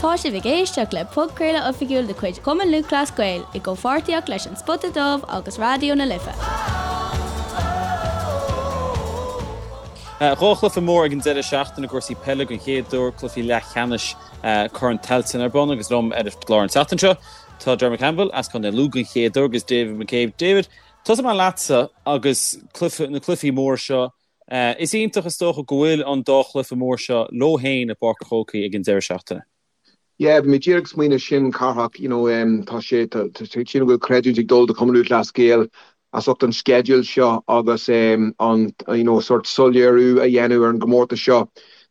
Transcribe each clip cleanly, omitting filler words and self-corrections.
Tá sibh ag éisteacht le podchraoladh oifigiúil de chuid Chumann Lúthchleas Gael i gcomhpháirtíocht leis An Spota Dubh agus Raidió na Life. Dhá chluiche mór ag an deireadh seachtaine i gcúrsaí peile den chéad uair, cluichí leathcheannais Chorn Tailteann ar bun agus liom ar an gclár an tseachtain seo tá Dermot Campbell as Contae Lú den chéad uair agus David McCabe. David, tosóidh mé leatsa agus cluiche, na cluichí móra seo. Is iontach is dócha go bhfuil an dá chluiche mór seo leo féin i bPáirc an Chrócaigh ag an deireadh seachtaine. Yeah, bhí mé díreach ag smaoineamh sin, Cárthach, you know, tá sé, tá sé, sílim go bhfuil creidiúint ag dul do Chumann Lúthchleas Gael as ucht an sceideal seo agus an, you know, sort soiléiriú a dhéanamh ar an gcomórtas seo.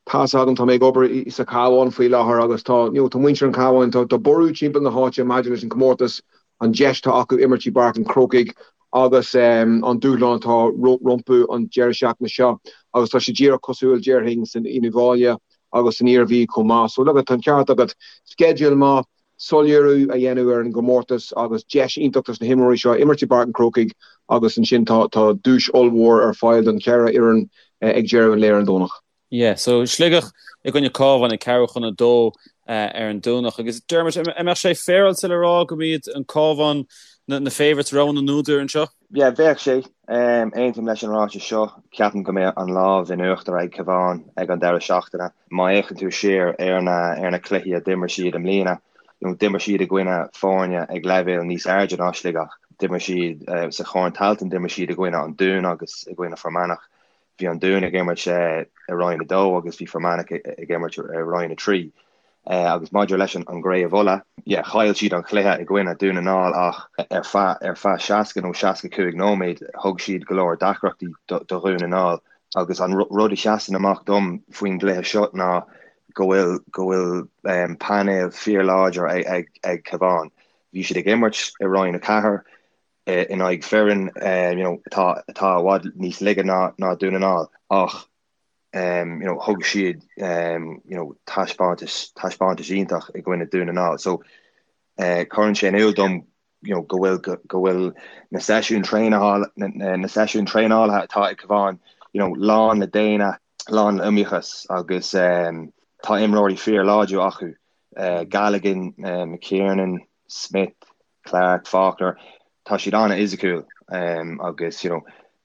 Tá's agam, tá mé ag obair sa Chabhán faoi láthair agus tá, you know, tá muintir an Chabháin, tá, tá borradh timpeall na háite maidir leis an gcomórtas, an deis atá acu imirt i bPáirc an Chrócaigh agus an dúshlán atá rompu an deireadh seachtaine seo agus tá sé díreach cosúil, déarfainn, san Uíbh Fhailí agus san Iarmhí chomh maith. So look, tá an ceart agat, sceideal maith, soiléiriú a dhéanamh ar an gcomórtas agus deis iontach dos na himreoirí seo imirt i bPáirc an Chrócaigh agus ansin tá duais ollmhór ar fáil don cheithre fhoireann ag deireadh an lae ar an Domhnach. Yeah, so Sligeach i gcoinne Cabhán ag ceathrú chun a dó ar an Domhnach. Agus Dermot, an mbeadh sé féaráilte le rá go mb'iad an Cabhán na favourites, rogha na n-údar anseo? Yeah, bheadh sé. Aontaím leis an ráiteas seo. Ceapaim go mbeidh an lámh in uachtar ag Cabhán ag an deireadh seachtaine. Má fhéachann tú siar ar na ar na cluichí a d'imir siad i mbliana, you know, d'imir siad i gcoinne foirne ag leibhéal níos airde ná Sligeach. D'imir siad sa Chorn Tailteann, d'imir siad i gcoinne an Dúin agus i gcoinne Fear Manach. Bhí an Dún ag imirt i Roinn 2 agus bhí Fear Manach ag imirt i Roinn 3. Agus maidir leis an gCraobh Uladh, yeah, chaill siad an chluiche i gcoinne Dún na nGall ach ar feadh ar feadh 60 nó 65 nóiméad thug siad go leor deacrachtaí do Dhún na nGall. Agus an rud a sheasann amach dom faoin gcluiche seo ná go bhfuil go bhfuil painéal fíorláidir ag ag Cabhán. Bhí siad ag imirt i Roinn 4, in aghaidh foireann you know atá atá i bhfad níos laige ná ná Dún na nGall ach you know thug siad you know taispeántas taispeántas iontach i gcoinne Dún na nGall so cuireann sé in iúl dom you know go bhfuil go bhfuil na seisiúin traenála na seisiúin traenála atá ag Cabhán you know lán le déine lán le iomaíochas agus tá imreoirí fíorláidir acu Galligan McKiernan Smith Clarke, Faulkner, tá siad an-fhisiciúil agus you know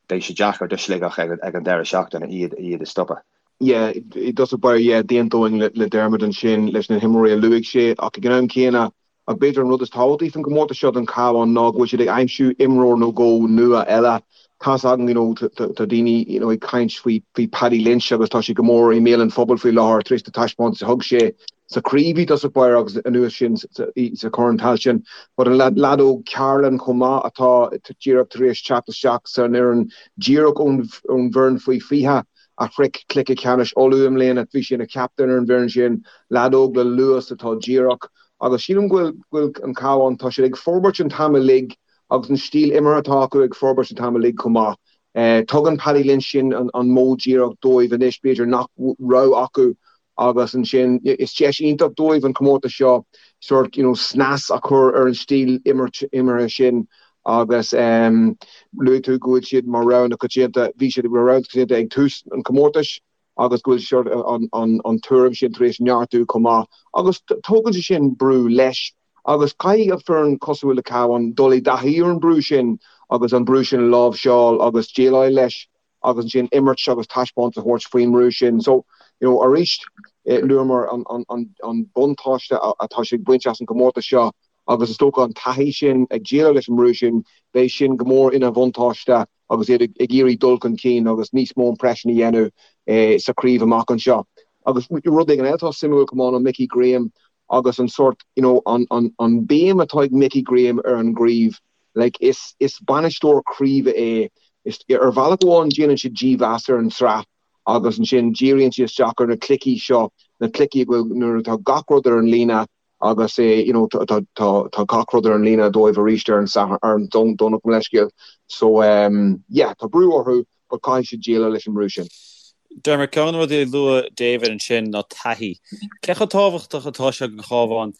beidh sé deacair do Shligeach ag an deireadh seachtaine iad iad a stopadh. Yeah, i dtosach báire, yeah, d'aontóinn le Dermot ansin leis na himreoirí a luaigh sé ach ag an am céanna, ach b'fhéidir an rud is tábhachtaí faoin gcomórtas seo don Chabhán ná go bhfuil siad ag aimsiú imreoir nó dhó nua eile. Tá's againn, you know, tá daoine, you know, ag caint faoi faoi Paddy Lynch agus tá sé go mór i mbéal an phobail faoi láthair tar éis na taispeántais a thug sé sa chraobh i dtosach báire agus anuas sin sa Chorn Tailteann. But an leaid óg Carolan chomh maith atá díreach tar éis teacht isteach san fhoireann díreach ón bhfoireann faoi 20 a shroich cluiche ceannais Uladh i mbliana, bhí sé ina chaptaen ar an bhfoireann sin, leaid óg le luas atá díreach agus sílim go bhfuil an Cabhán, tá siad ag forbairt an t-am uilig agus an stíl imeartha atá acu ag forbairt an t-am uilig chomh maith. Tugann Paddy Lynch sin an modh díreach dóibh anois b'fhéidir nach raibh acu agus ansin is deis iontach dóibh an comórtas seo sort you know snas a chur ar an stíl imeartha sin agus luaigh tú go bhfuil siad mar rogha na coitianta, bhí siad mar rogha na coitianta ag tús an chomórtais agus go bhfuil sort an tuairim sin tar éis neartú chomh maith agus tógann sé sin brú leis agus caithfidh an foireann cosúil le Cabhán dul i dtaithí ar an brú sin agus an brú sin a láimhseáil agus déileáil leis. agus ansin imirt agus taispeántas a thabhairt faoin mbrú sin. So, you know, arís, luamar an buntáiste atá siad ag baint as an gcomórtas seo agus is dócha an taithí sin ag déileáil leis an mbrú sin, beidh sin go mór ina bhuntáiste agus iad ag iarraidh dul chun cinn agus níos mó impression a dhéanamh sa chraobh amach anseo. Agus rud éigin eile atá suimiúil chomh maith ná Mickey Graham agus an sórt, you know, an béim atá ag Mickey Graham ar an gcraobh. Like, is, is bainisteoir craoibhe é. Is, ar bhealach amháin déanann sé dímheas ar an tsraith agus ansin díríonn sé isteach ar na cluichí seo, na cluichí a bhfuil, nuair atá gach rud ar an líne agus é, you know, tá, tá, tá, tá gach rud ar an líne dóibh arís ar an Satharn, ar an Domhnach, mo leithscéal. So, um, yeah, tá brú orthu but caithfidh siad déileáil leis an mbrú sin. Dermot, ceann de na rudaí a luaigh David ansin ná taithí. Cé chomh tábhachtach atá sé don Chabhán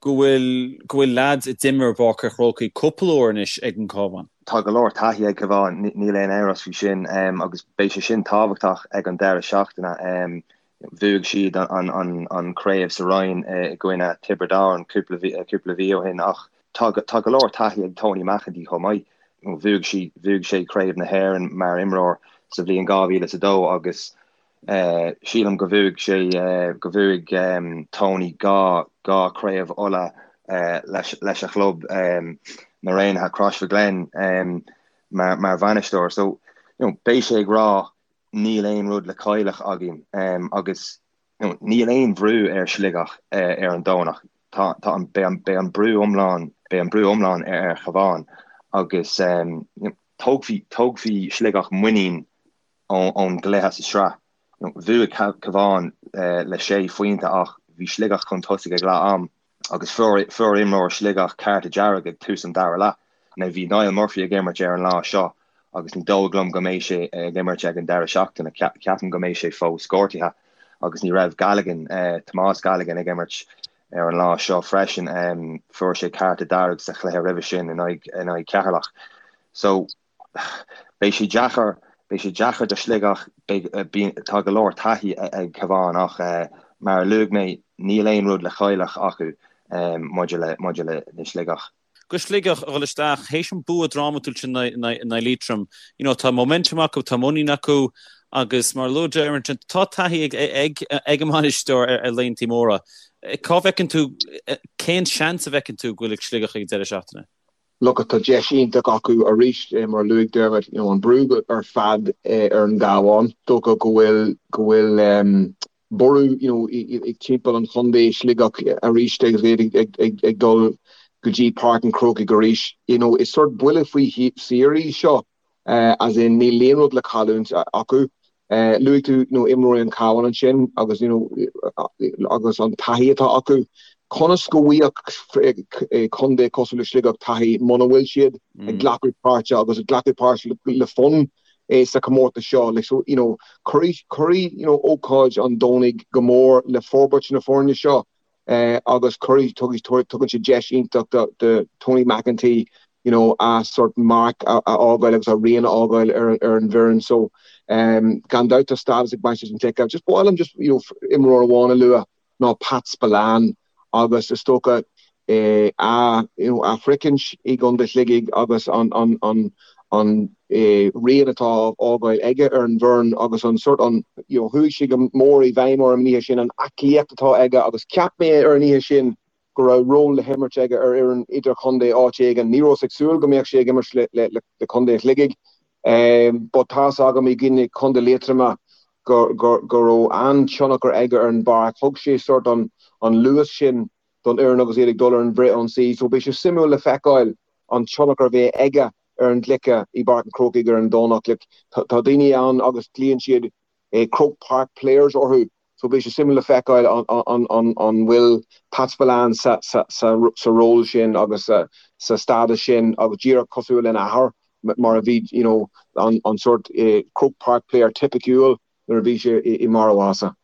go bhfuil go bhfuil leaids a d'imir i bPáirc an Chrócaigh cúpla uair anois ag an Cabhán. Tá go leor taithí ag Cabhán, níl aon amhras faoi sin, agus beidh sé sin tábhachtach ag an deireadh seachtaine. Bhuaigh siad an chraobh sa Roinn i gcoinne Tiobraid Árann cúpla mhí ó shin ach tá go leor taithí ag Tony McEntee chomh maith. Bhuaigh bhuaigh sé Craobh na hÉireann mar imreoir sa bhliain 2002 agus sílim go bhuaigh sé go bhuaigh Tony 2 2 Craobh Uladh leis leis a chlub na Raonaithe Crossmaglen mar mar bhainisteoir. So you know, beidh sé ag rá níl aon rud le cailleadh againn agus you know, níl aon bhrú ar Sligeach ar an Domhnach. Tá tá an beidh an beidh an brú iomlán beidh an brú iomlán ar ar Chabhán agus you know, tógfaidh tógfaidh Sligeach muinín ón gcluiche sa sraith. Bhuaigh Cabhán le sé phointe ach bhí Sligeach chun tosaigh ag leath am agus fuair imreoir Sligeach cárta dearg ag tús an dara leath. Now bhí Niall Murphy ag imirt ar an lá seo agus ní dóigh liom go mbeidh sé ag imirt ag an deireadh seachtaine. Ceapaim go mbeidh sé fós gortaithe agus ní raibh Galligan, Tomás Galligan ag imirt ar an lá seo freisin. Fuair sé cárta dearg sa chluiche roimhe sin in aghaidh Cheatharlach. So Beidh sé deacair, beidh sé deacair do Shligeach, beidh, bíonn, tá go leor taithí ag Cabhán ach mar a luaigh mé, níl aon rud le cailleadh acu maidir le, maidir le Sligeach. Do Shligeach a dhul isteach, théis an bua drámatúil sin in aghaidh Liatroim, you know, tá momentum acu, tá muinín acu agus mar a luaigh Dermot, tá taithí ag, ag, ag an mbainisteoir ar, ar laethanta móra. Cá bhfeiceann tú, cén seans a bhfeiceann tú go bhfuil ag Sligeach ag an deireadh seachtaine? Look, tá deis iontach acu arís, mar a luaigh Dermot, you know, an brú ar fad ar an gCabhán. Dócha go bhfuil, go bhfuil borradh, you know, ag timpeall an chontae, Sligeach arís agus iad ag, ag, ag, ag dul go dtí Páirc an Chrócaigh arís. You know, is sort buille faoi saor í seo. As in níl aon rud le cailliúint acu. Luaigh tú you know imreoirí an Chabháin ansin agus you know agus an taithí atá acu. Conas go bhfaigheadh contae cosúil le Sligeach taithí muna bhfuil siad ag glacadh páirte agus ag glacadh páirt le fonn sa chomórtas seo? Like so you know cuirfidh cuirfidh you know ócáid an Domhnaigh go mór le forbairt na foirne seo. agus cuirfidh, tugann sé deis iontach do Tony McEntee you know a sort marc a fhágáil agus a rian a fhágáil ar an bhfoireann. So gan dabht tá stádas ag baint leis an gcluiche. Just ba mhaith liom just you know imreoir amháin a lua ná Pat Spillane agus is dócha a you know a shroichint i gContae Shligigh agus an an an an rian atá á fhágáil aige ar an bhfoireann agus an sort an you know chuaigh sé go mór i bhfeidhm orm an oíche sin, an aclaíocht atá aige agus cheap mé ar an oíche sin go raibh ról le himirt aige ar fhoireann idirchontae áit éigin. Ní rabhas ag súil go mbeadh sé ag imirt le le le Contae Shligigh but tá's agam i gcoinne Contae Liatroma go go go raibh an-tionchar aige ar an bpáirc. Thug sé sort an an luas sin don fhoireann agus iad ag dul ar an bhfrithionsaí so beidh sé suimiúil le feiceáil an tionchar a bheidh aige ar an gcluiche i bPáirc an Chrócaigh ar an Domhnach. Like, tá daoine ann agus glaonn siad Croke Park players orthu so beidh sé suimiúil le feiceáil an bhfuil Pat Spillane sa sa ról sin agus sa stádas sin agus díreach cosúil lena athair mar a bhí you know an an sort Croke Park player tipiciúil nuair a bhí sé i mbarr a mhaitheasa.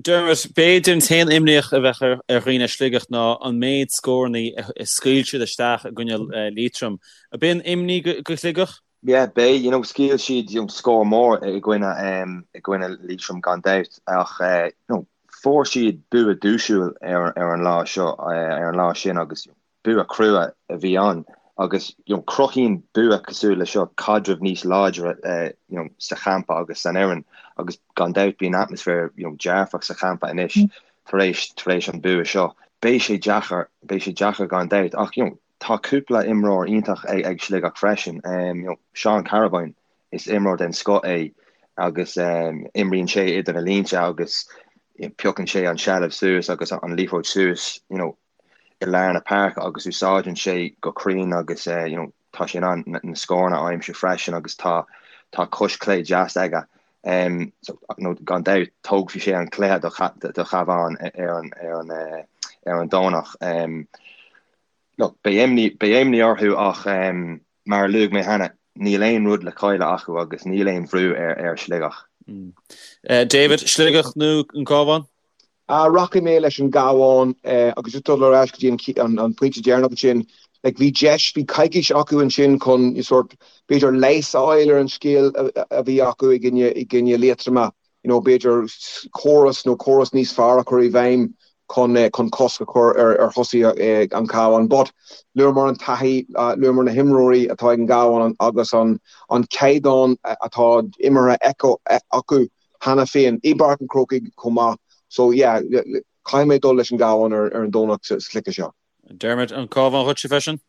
Dermot, b'fhéidir an t-aon imní a bheadh ar dhaoine i Sligeach ná an méid scóranna a scaoil siad isteach i gcoinne Liatroim. Ab é an imní do Shligeach? Yeah, beidh, you know, scaoil siad you know, scór mór i gcoinne um, i gcoinne Liatroim gan dabht ach uh, you know, fuair siad bua duaisiúil ar, ar an lá seo uh, ar an lá sin agus you know, Bua crua a bhí ann agus you know cruthaíonn bua cosúil le seo caidreamh níos láidre you know sa champa agus san fhoireann agus gan dabht bíonn atmaisféar you know dearfach sa champa anois tar éis tar éis an bua seo. Beidh sé deacair, beidh sé deacair gan dabht ach you know tá cúpla imreoir iontach ag ag Sligeach freisin. Um, you know Seán Carrabine is imreoir den scoth é agus um, imríonn sé idir na línte agus you know, piocann sé an seilbh suas agus an liathróid suas you know, i lár na páirce agus úsáideann sé go cruinn agus you know tá sé in ann na scóranna a aimsiú freisin agus tá tá cois clé deas aige. Um, so, no, gan dabht tógfaidh sé an cluiche do, do Chabhán ar an, ar an, uh, ar an Domhnach. Um, look, beidh imní, beidh imní orthu ach um, mar a luaigh mé cheana, níl aon rud le cailleadh acu agus níl aon bhrú ar, ar Sligeach. Mm. Uh, David, Sligeach nó an Cabhán? Rachaidh mé leis an gCabhán agus just dul ar ais go dtí an pointe deireanach ansin, like bhí deis, bhí coicís acu ansin chun sort b'fhéidir leigheas a fháil ar an scéal a bhí acu i gcoinne, i gcoinne Liatroma. you know, b'fhéidir córas nó córas níos fearr a chur i bhfeidhm chun chun cosc a chur ar ar thosaithe an Chabháin. But luamar an taithí, luamar na himreoirí atá ag an gCabhán agus an an caighdeán atá imeartha acu cheana féin i bPáirc an Chrócaigh chomh maith. So yeah, caithfidh mé dul leis an gCabhán ar ar an Domhnach sa chluiche seo. Dermot, an Cabhán dhuitse freisin?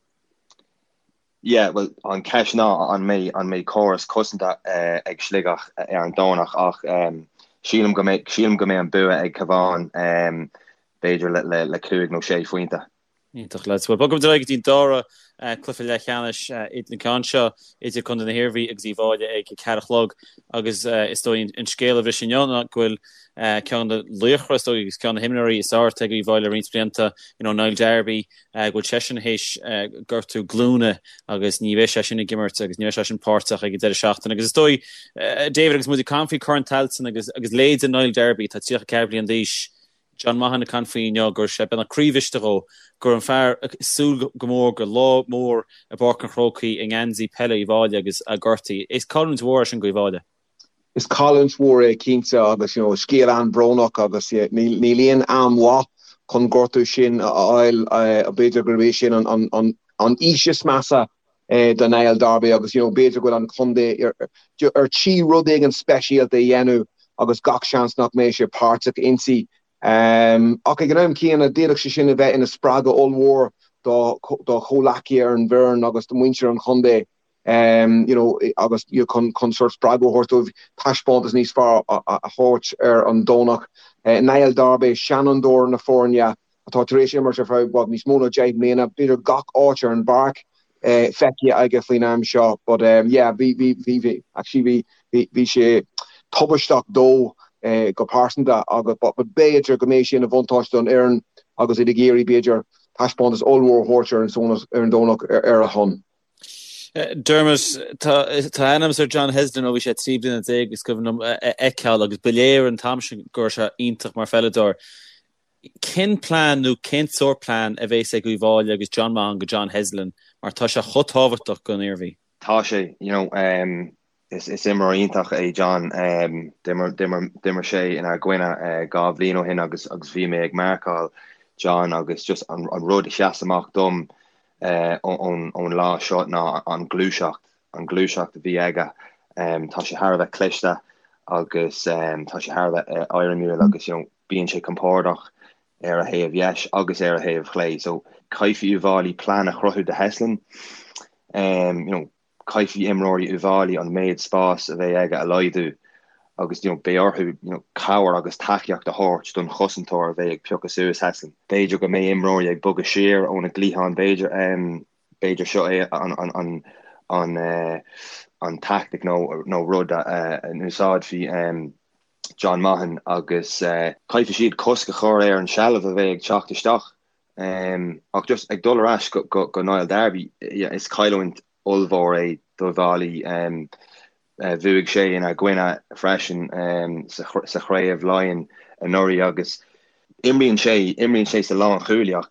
Yeah, bhuel, an cheist ná an mbeidh an mbeidh córas cosanta ag Sligeach ar an Domhnach ach sílim go mbeidh sílim go mbeidh an bua ag Cabhán b'fhéidir le le le 5 nó 6 phointe. Iontach lads. Bhuel, bogfaimid ar aghaidh go dtí an dara cluiche leathcheannais an ceann seo idir Contae na hIarmhí agus Uíbh Fhailí ag a ceathair a chlog agus is dóigh an scéal a bhris inniu ná go bhfuil ceann de laochra is dóigh agus ceann de na himreoirí is fearr atá ag Uíbh Fhailí le roinnt blianta, you know, Niall Darby, go bhfuil seisean théis gortú glúine agus ní bheidh sé sin ag imirt agus ní bheidh sé sin páirteach ag an deireadh seachtaine. Agus is dóigh, David, agus muid ag caint faoi Chorn Tailteann agus agus leithéide Niall Darby, atá 34 bliain d'aois, John Maughan ag caint faoi inniu go raibh sé beagnach croíbhriste dhó go raibh an fear ag súil go mór go lá mór i bPáirc an Chrócaigh i ngeansaí peile Uíbh Fhailí agus é gortaithe. Is cailliúint mhór é sin do Uíbh Fhailí. Is cailliúint mhór é cinnte agus you know scéal an-bhrónach agus níl aon am mhaith chun gortú sin a fháil. B'fhéidir gurb é sin an aois is measa do Niall Darby agus you know b'fhéidir go bhfuil an contae ar tí rud éigin speisialta a dhéanamh agus gach seans nach mbeidh sé páirteach inti. Ach ag an am céanna d'fhéadfadh sé sin a bheith ina spreagadh ollmhór dá chomhleacaithe ar an bhfoireann agus do mhuintir an chontae. you know agus chun chun sórt spreagadh a thabhairt dóibh taispeántas níos fearr a thabhairt ar an Domhnach. Niall Darby, seanfhondúir na foirne atá tar éis imirt ar feadh bhuel níos mó ná 10 mbliana, b'fhéidir gach áit ar an bpáirc feicthe aige faoin am seo but yeah bhí bhí bhí bhí actually bhí bhí bhí sé tubaisteach dó go pearsanta agus but b'fhéidir go mbeidh sé ina bhuntáiste don fhoireann agus iad ag iarraidh b'fhéidir taispeántas ollmhór a thabhairt ar an ar an Domhnach ar a shon. Dermot, tá aithne agam ar John Heslin ó bhí sé 13 bliana is cuimhin liom a fheiceáil agus ba léir an t-am sin go raibh sé iontach mar pheileadóir. Cén plean nó cén sórt plean a bhéas ag Uíbh Fhailí agus John Maughan go John Heslin mar tá sé chomh tábhachtach don Iarmhí? Tá sé, you know, is imreoir iontach é John. D'imir sé inár gcoinne 2 bhliain ó shin agus bhí mé ag marcáil John agus just an rud a sheas amach dom ón lá seo ná an ghluaiseacht, an ghluaiseacht a bhí aige. Tá sé thar a bheith cliste agus tá sé thar a bheith éirimiúil agus you know bíonn sé compordach ar a thaobh dheis agus ar a thaobh chlé. So caithfidh Uíbh Fhailí plean a chruthú do Heslin. You know caithfidh imreoirí Uíbh Fhailí an méid spáis a bheidh aige a laghdú agus you know beidh orthu you know cabhair agus tacaíocht a thabhairt don chosantóir a bheidh ag piocadh suas Heslin. B'fhéidir go mbeidh imreoirí ag bogadh siar óna gcliathán b'fhéidir b'fhéidir seo é an an an an an tactic nó nó rud a n-úsáidfidh John Maughan agus caithfidh siad cosc a chur ar an seilbh a bheidh ag teacht isteach. Ach just ag dul ar ais go Niall Darby, is cailliúint ollmhór é d'Uíbh Fhailí. Bhuaigh sé inár gcoinne freisin sa chraobh Laighean anuraidh agus imríonn sé, imríonn sé sa lánchúlaí ach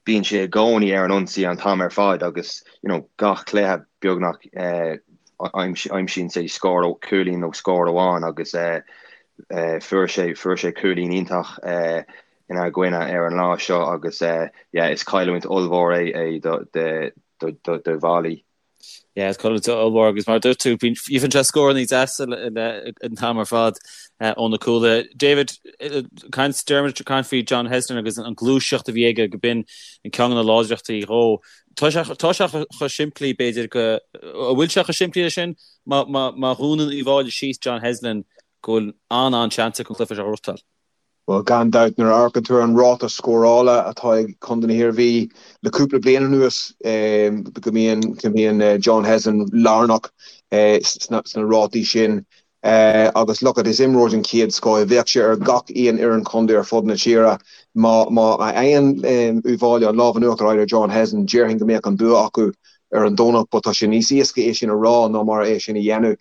bíonn sé i gcónaí ar an ionsaí an t-am ar fad agus you know gach cluiche beagnach aimsíonn sé scór, cúilín nó scór amháin agus fuair sé, fuair sé cúilín iontach inár gcoinne ar an lá seo agus yeah is cailliúint ollmhór é é do d'Uíbh Fhailí. Yeah, is cailliúint ollmhór agus mar a dúirt tú, bíonn faigheann sé scóranna deasa an t-am ar fad ó na cúlaithe. David, caint Dermot ag caint faoi John Heslin agus an gluaiseacht a bhí aige go b'in an ceann de na láidreachtaí dhó. Tá sé tá sé chomh simplí b'fhéidir go an bhfuil sé chomh simplí leis sin má má má dhúnann Uíbh Fhailí síos John Heslin go bhfuil an-an-seans acu an cluiche seo a ghnóthachtáil. Bhuel, gan dabht, nuair a amharcann tú ar an ráta scórála atá ag Contae na hIarmhí le cúpla bliain anuas, go mbíonn go mbíonn John Heslin lárnach sna rátaí sin. Agus look it, is imreoir den chéad scoth é. Bheadh sé ar gach aon fhoireann chontae ar fud na tíre. Má má fhaigheann Uíbh Fhailí an lámh in uachtar ar John Heslin, déarfainn go mbeadh an bua acu ar an Domhnach, but tá sé níos éasca é sin a rá ná mar é sin a dhéanamh.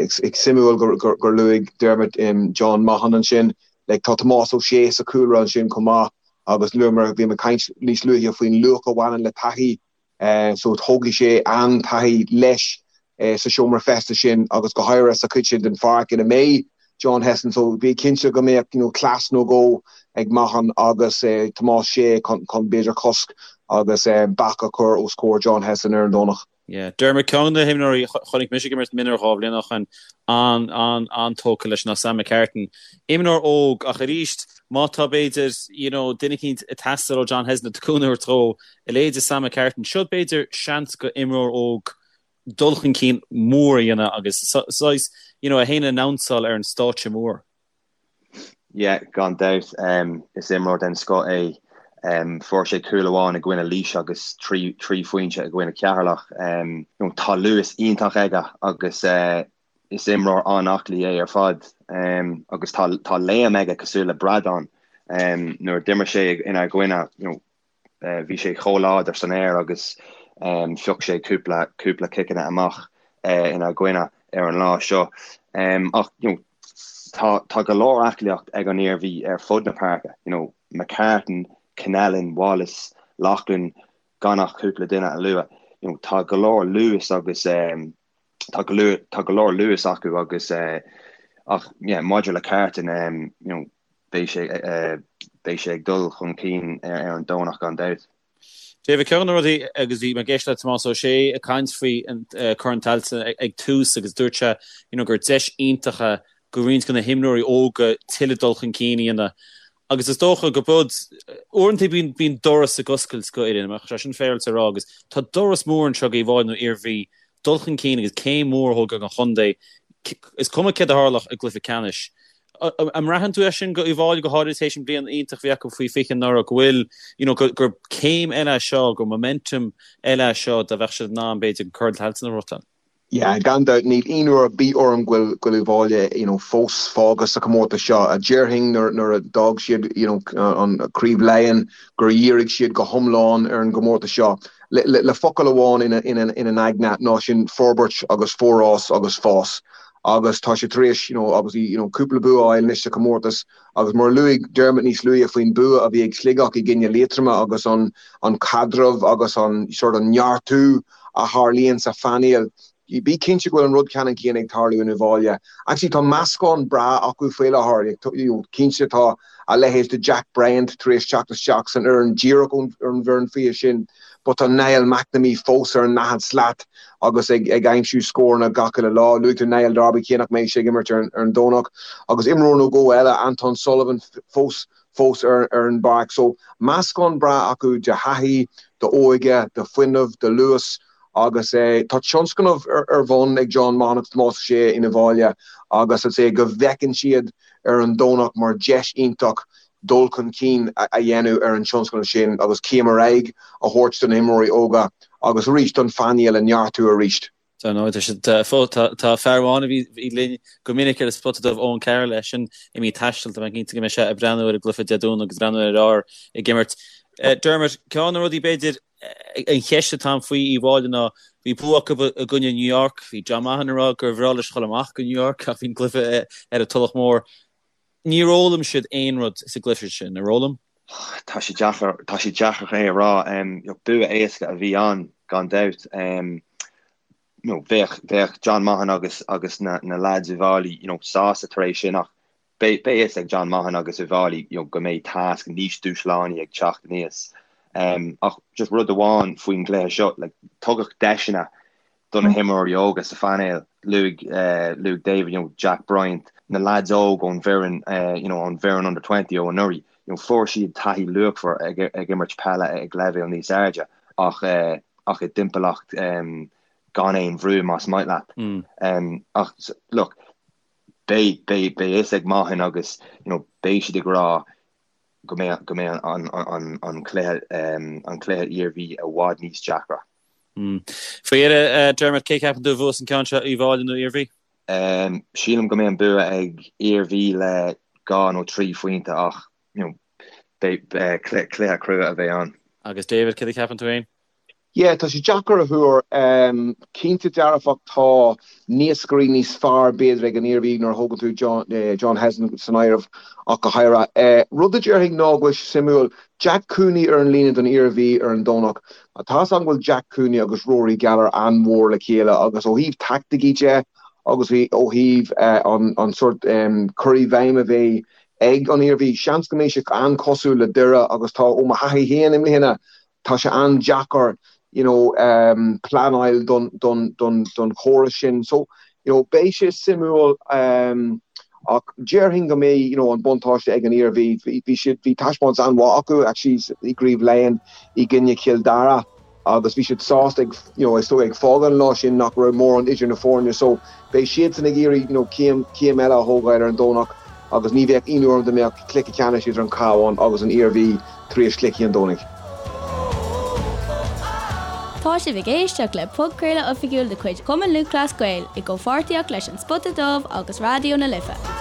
Suimiúil gur luaigh Dermot John Maughan ansin. Like tá Tomás Ó Sé sa chúlra ansin chomh maith agus luamar, bhí mé ag caint níos luaithe faoin luach a bhaineann le taithí so tógfaidh sé an-taithí leis sa seomra feistis sin agus go háirithe sa chuid sin den pháirc ina mbeidh. John Hesson so bí cinnte go mbeadh you know cleas nó dhó ag Mahon agus Tomás Sé chun b'fhéidir cosc agus bac a chur os comhair John Hesson ar an Domhnach. Yeah. Dermot, ceann de na himreoirí a chonaic mise ag imirt mionúir 2 bhliain ó shin, an-an-an-tógtha leis ná Sam McCartan. Imreoir óg ach arís má tá b'fhéidir you know duine eicínt ag teastáil ó John Hesson le cúnamh a thabhairt dó, a leithéid de Sam McCartan, seo b'fhéidir seans go imreoir óg dul chun cinn mór a dhéanamh agus saghas you know é féin a announceáil ar an stáitse mór. Yeah, gan dabht. Is imreoir den scoth é. Fuair sé cúl amháin i gcoinne Laois agus 3 phointe i gcoinne Ceatharlach. Tá luas iontach aige agus is imreoir an-aclaí é ar fad. Agus tá léim aige cosúil le bradán. Nuair a d'imir sé inár gcoinne, Bhí sé chomh láidir san aer agus phioc sé cúpla cúpla ciceanna amach inár gcoinne ar an lá seo. Ach you know tá tá go leor aclaíocht ag an Iarmhí ar fud na páirce, you know McCartan, Connellan, Wallace, Loughlin, gan ach cúpla duine a lua. You know tá go leor luas agus tá go leor tá go leor luas acu agus ach yeah maidir le Carton you know beidh sé beidh sé ag dul chun cinn ar an Domhnach gan dabht. David, ceann de na rudaí agus bhí mé ag éisteacht le Tomás Ó Sé ag caint faoi Corn Tailteann ag tús agus dúirt sé you know gur deis iontach é go roinnt de na himreoirí óga tuilleadh dul chun cinn a dhéanamh agus is dócha go bud uaireanta bíonn bíonn doras ag oscailt go fhoireann, an mbeadh sé sin féaráilte a rá agus tá doras mór anseo go Uíbh Fhailí nó Iarmhí dul chun cinn agus céim mhór a thógáil don chontae. Is cuma céard a tharlódh i gcluiche ceannais. An mbraitheann tú é sin go Uíbh Fhailí, go háirithe tar éis an bhliain iontach a bhí acu faoi 20 anuraidh, go bhfuil, you know, gur céim eile é seo, gur momentum eile é seo dá mbeadh siad in ann, b'fhéidir, Corn Tailteann a ghnóthachtáil? Yeah, gan dabht, níl aon rud ar bith orm go bhfuil go bhfuil Uíbh Fhailí, you know, fós fágtha sa chomórtas seo. Déarfainn nuair nuair a d'fhág siad, you know, an Craobh Laighean gur dhírigh siad go hiomlán ar an gcomórtas seo. Le focal amháin ina ina ina n-aigne ná sin forbairt agus forás agus fás. Agus tá siad tar éis, you know, obviously, you know, cúpla bua a fháil anois sa chomórtas agus mar a luaigh Dermot níos luaithe faoin bua a bhí ag Sligeach i gcoinne Liatroma agus an an caidreamh agus an sort of neartú a tharlaíonn sa phainéal. Bí cinnte go bhfuil an rud ceannann céanna ag tarlú in Uíbh Fhailí. Actually tá meascán breá acu faoi láthair. Cinnte tá a leithéid de Jack Bryant tar éis teacht isteach san fhoireann díreach ón bhfoireann faoi 20 sin but tá Niall McNamee fós ar an ndaichead slat agus ag aimsiú scóranna gach uile lá. Luaigh tú Niall Darby cé nach mbeidh sé ag imirt ar an Domhnach. Agus imreoir nó dhó eile, Anton Sullivan fós fós ar an bpáirc. So, meascán breá acu de thaithí, d'óige, de fuinneamh, de luas agus tá tionscnamh ar bun ag John Maughan agus Tomás Ó Sé in Uíbh Fhailí agus I'd say go bhfeiceann siad ar an Domhnach mar deis iontach dul chun cinn a dhéanamh ar an tionscnamh sin agus céim ar aghaidh a thabhairt do na himreoirí óga agus arís don phainéal a neartú arís. Dar ndóigh, tá siad fós, tá fear amháin a bhí linn go minic ar an Spota Dubh, Eoin Carroll, eisean imithe ag taisteal, tá mé cinnte go mbeidh sé ag breathnú ar an gcluiche Dé Domhnaigh agus ag breathnú ar a fhear ag imirt. Dermot, ceann de na rudaí b'fhéidir, an cheist atá ann faoi Uíbh Fhailí ná, bhí bua acu i gcoinne New York, bhí John Maughan ag rá gur bhreá leis dhul amach go New York ach bhí an cluiche ar an Tulach Mhór. Níor fhoghlaim siad aon rud sa gcluiche sin, ar fhoghlaim? Tá sé deacair, tá sé deacair é a rá. Bua éasca a bhí ann, gan dabht. You know, bheadh, bheadh John Maughan agus, agus na, na lads Uíbh Fhailí, you know, sásta tar éis sin ach beidh, beidh fhios ag John Maughan agus Uíbh Fhailí, you know, go mbeidh tasc níos dúshlánaí ag teacht aníos. Ach just rud amháin faoin gcluiche seo, like, tugadh deiseanna do na himreoirí óga sa phainéal, luaigh luaigh David, you know, Jack Bryant, na lads óg ón bhfoireann, you know, ón bhfoireann under 20 ó anuraidh, you know, fuair siad taithí luachmhar ag ag imirt peile ag leibhéal níos airde ach ach i dtimpeallacht gan aon bhrú más maith leat. Ach look, beidh beidh beidh fhios ag Maughan agus, you know, beidh siad ag rá go mbeidh go mbeidh an an an cluiche an cluiche Iarmhí i bhfad níos deacra. Faoi dheireadh, Dermot, cé ceapann tú a bhuas an ceann seo, Uíbh Fhailí nó Iarmhí? Sílim go mbeidh an bua ag Iarmhí le 2 nó 3 phointe ach you know, beidh cluiche crua a bheidh ann. Agus David, céard a cheapann tú féin? Yeah, tá sé deacair a thuar. Cinnte dearfach tá naoscairí níos fearr b'fhéidir ag an Iarmhí nuair a thógann tú John, John Hesson san áireamh ach go háirithe. Rud a déarfainn ná go bhfuil sé suimiúil, Jack Cooney ar an líne don Iarmhí ar an Domhnach. Tá's agam go bhfuil Jack Cooney agus Rory Gallagher an-mhór le chéile agus ó thaobh taicticí de. agus ó thaobh an sórt cur i bhfeidhm a bheidh ag an Iarmhí, seans go mbeidh sé an-chosúil le Doire agus tá, ó mo thaithí féin i mbliana, tá sé an-deacair you know pleanáil don don don don chóras sin. So you know beidh sé suimiúil ach déarfainn go mbeidh you know an buntáiste ag an Iarmhí. Bhí siad, bhí taispeántas an-mhaith acu actually i gCraobh Laighean i gcoinne Chill Dara. agus bhí siad sásta ag, you know, is dóigh ag fágáil an lá sin nach raibh mórán idir na foirne so beidh siadsan ag iarraidh, you know, céim, céim eile a thógáil ar an Domhnach agus ní bheadh ionadh orm dá mbeadh cluiche ceannais idir an Cabhán agus an Iarmhí tar éis chluichí an Domhnaigh. Tá sibh ag éisteacht le podchraoladh oifigiúil de chuid Chumann Lúthchleas Gael i gcomhpháirtíocht leis An Spota Dubh agus Raidió na Life.